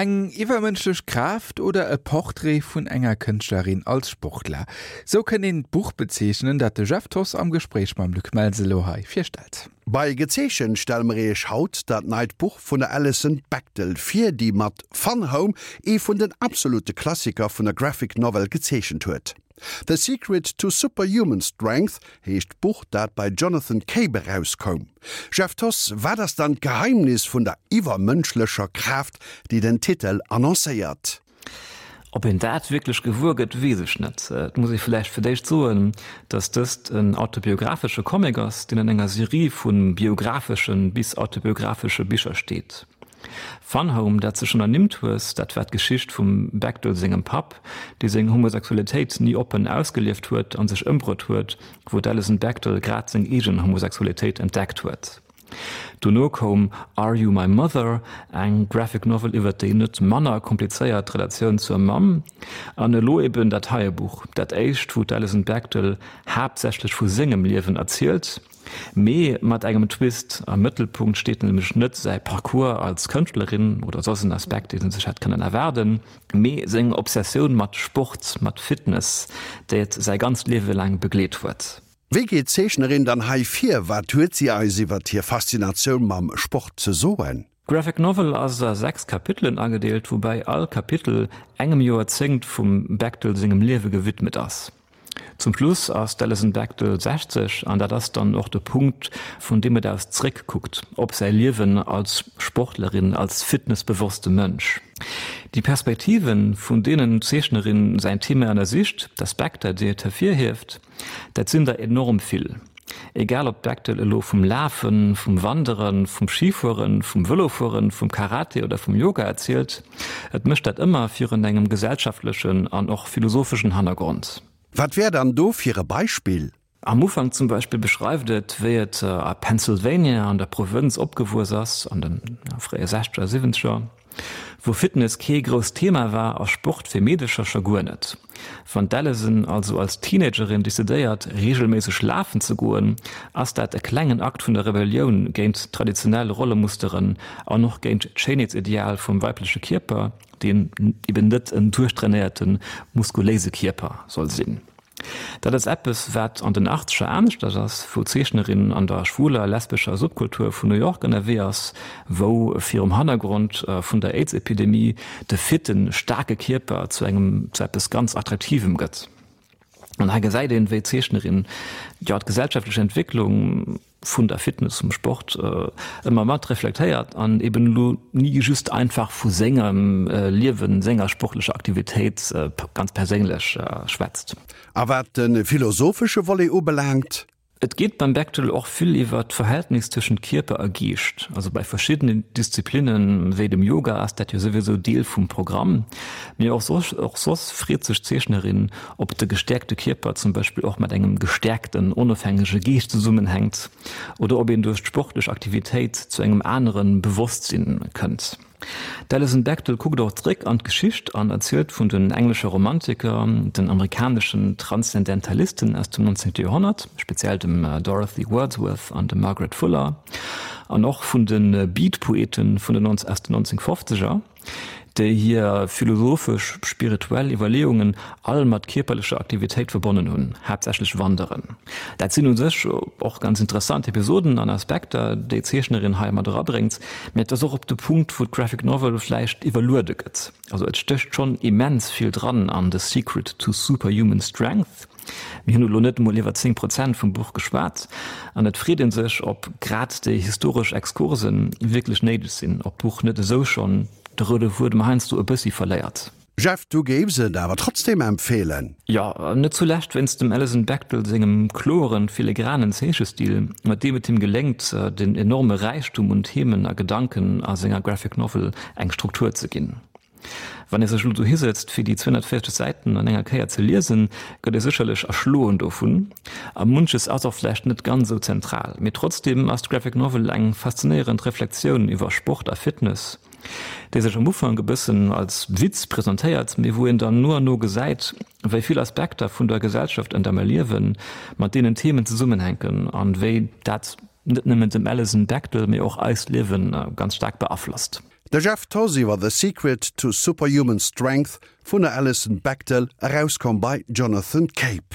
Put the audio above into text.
Eng iwwermënschlech Kraaft oder e Portrait vun enger Kënschtlerin als Sportler? Sou kënnt een d'Buch bezeechnen, dat de Jeff Thoss am Gespréich mam Luc Melsen elo hei virstellt. Bei Gezeechent stelle mer iech haut dat neit Buch vun der Alison Bechdel vir, déi mat Fun Home ee vun den absolute Klassiker vun der Graphic Novel gezeechent huet. The Secret to Superhuman Strength heescht d'Buch, dat bei Jonathan Cape erauskoum. Jeff Thoss, wat ass dann d'Geheimnis vun der iwwermënschlecher Kraaft, déi den Titel annoncéiert? Ob een dat wierklech gewuer gëtt, weess ech net. Et muss ee vläicht fir d'éischt soen, datt dëst en autobiographesche Comic ass, deen an enger Serie vu biographeschen bis autobiographesche Bicher steet. Fun Home, dat s de schonn ernimmt hues, dat war d'Geschicht vum Bechdel sengem Papp, dee seng Homosexualitéit ni oppen ausgelieft huet a sech ëmbruet huet, wou d'Alison Bechdel grad seng eegen Homosexualitéit entdeckt huet. Dono koum Are You My Mother, eng Graphic Novel iwwert déi net manner komplizéiert Relatioun zur Mamm, an elo eben dat heie Buch, dat éischt, wou d'Alison Bechdel haaptsächlech vu sengem Liewen erzielt. Mee mat engem Twist, Am Mëttelpunkt steet nämlech net säi Parcours als Kënschtlerin oder soss en Aspekt, deen ee sech hätt kënnen erwaarden, mee seng Obsessioun mat Sport, mat Fitness, déi et säi ganzt Liewe laang begleet huet. Wéi geet d'Zeechnerin dann hei vir? Wat huet si eis iwwert hir Faszinatioun mam Sport ze soen? D'Graphic Novel ass a 6 Kapitelen agedeelt, woubäi all Kapitel engem Joerzéngt vum Bechdel sengem Liewe gewidmet ass. Zum Schluss ass d'Alison Bechdel 60 an dat ass dann och de Punkt, vun deem et aus zréckkuckt op säi Liewen als Sportlerin, als fitnessbewosste Mënsch. Déi Perspektiven, vun deenen d'Zeechnerin säin Thema ënnersicht, d'Aspekter, déi et hervirhieft, Dat sinn der enorm vill. Egal ob d'Bechtel elo vum Lafen, vum Wanderen, vum Schifueren, vum Vëlofueren, vum Karate oder vum Yoga erzielt, et mécht dat ëmmer virun engem gesellschaftlechen an och philosopheschen Hannergrond. Wat wär dann do fir e Beispill? Am Ufank zum Beispill beschreift et, wéi et a Pennsylvania an der Provënz opgewuess ass, an de fréie Sechzeger, Siwwenzeger. Wou Fitness kee grousst Thema war a Sport fir Meedecher scho guer net. Wann d'Alison also als Teenagerin decidéiert, reegelméisseg lafen ze goen, ass dat e klengen Akt vun der Rebellioun géint traditionell Rollemusteren an och géint d'Schéinheetsideal vum weibleche Kierper, deen eben net en duerchtrainéierte muskuléise Kierper soll sinn. Dat ass eppes, wat an den Achtzeger aneschters ass, wou d'Zeechnerin an der schwuler, lesbescher Subkultur vun New York ënnerwee ass, wou virum Hannergrond vun der Aids-Epidemie de fitten, staarke Kierper zu engem, zu eppes ganz Attraktivem gëtt. An hei gesäit een, wéi d'Zeechnerin, jo, d'gesellschaftlech Entwécklung, vun der Fitness, vum Sport ëmmer mat reflektéiert an eben elo ni just einfach vu sengem Liewen, senger sportlecher Aktivitéit ganz perséinlech schwätzt. A wat de philosophesche Volet ubelaangt? Et geet beim Bechdel och vill iwwer d'Verhältnis tëschent Kierper a Geescht. Also bei verschiddenen Disziplinnen, wéi dem Yoga, ass dat jo souwisou Deel vum Programm. Mee och soss freet sech d'Zeechnerin, Ob de gestäerkte Kierper zum Beispill och mat engem gestäerkten, onofhängege Geescht zesummenhänkt oder ob een duerch d'sportlech Aktivitéit zu engem anere Bewosstsinn kënnt. D'Alison Bechdel kuckt och zréck an d'Geschicht an erzielt vun den englesche Romantiker, den amerikaneschen Transzendentalisten aus dem 19. Joerhonnert, speziell dem Dorothy Wordsworth an dem Margaret Fuller, an och vun de Beat-Poeten vun den aus den 1950er. déi hir philosophesch, spirituell Iwwerleeungen all mat kierperlecher Aktivitéit verbonnen hunn, haaptsächlech Wanderen. Dat sinn u sech och ganz interessant Episoden an Aspekter, déi d'Zeechnerin hei mat erabréngt, mä et ass och op de Punkt, wou d'Graphic Novel vläicht iwwerluede gëtt. Also et stécht schonn immens vill dran an The Secret to Superhuman Strength. Mir hunn elo net emol iwwer 10 Prozent vum Buch geschwat an et freet ee sech, ob grad déi historesch Exkurse wierklech néideg sinn, ob d'Buch net esou schonn de roude Fuedem heiansdo e bëssi verléiert. Jeff, du géifs et awer trotzdem empfeelen? Jo, net zulescht wéinst dem Alison Bechdel sengem kloren, filigranen Zeechestil, mat deem et him geléngt, den enorme Räichtum un Themen a Gedanken a senger Graphic Novel eng Struktur ze ginn. Wann ee sech elo dohi sëtzt fir déi 240 Säiten an enger Kéier ze liesen, gëtt ee sécherlech erschloen dovun a munches ass och vläicht net ganz esou zentral. Mee trotzdeem ass d'Graphic Novel eng faszinéierend Reflexioun iwwer Sport a Fitness, déi sech am Ufank e bëssen als Witz presentéiert, mee wou een dann no an no gesäit, wéi vill Aspekter vun der Gesellschaft, an der mer liewen, mat deenen Themen zesummenhänken an wéi dat net nëmmen dem Alison Bechdel, mee och eist Liewen ganz staark beaflosst. De Jeff Thoss iwwer The Secret to Superhuman Strength vun der Alison Bechdel, erauskomm bei Jonathan Cape.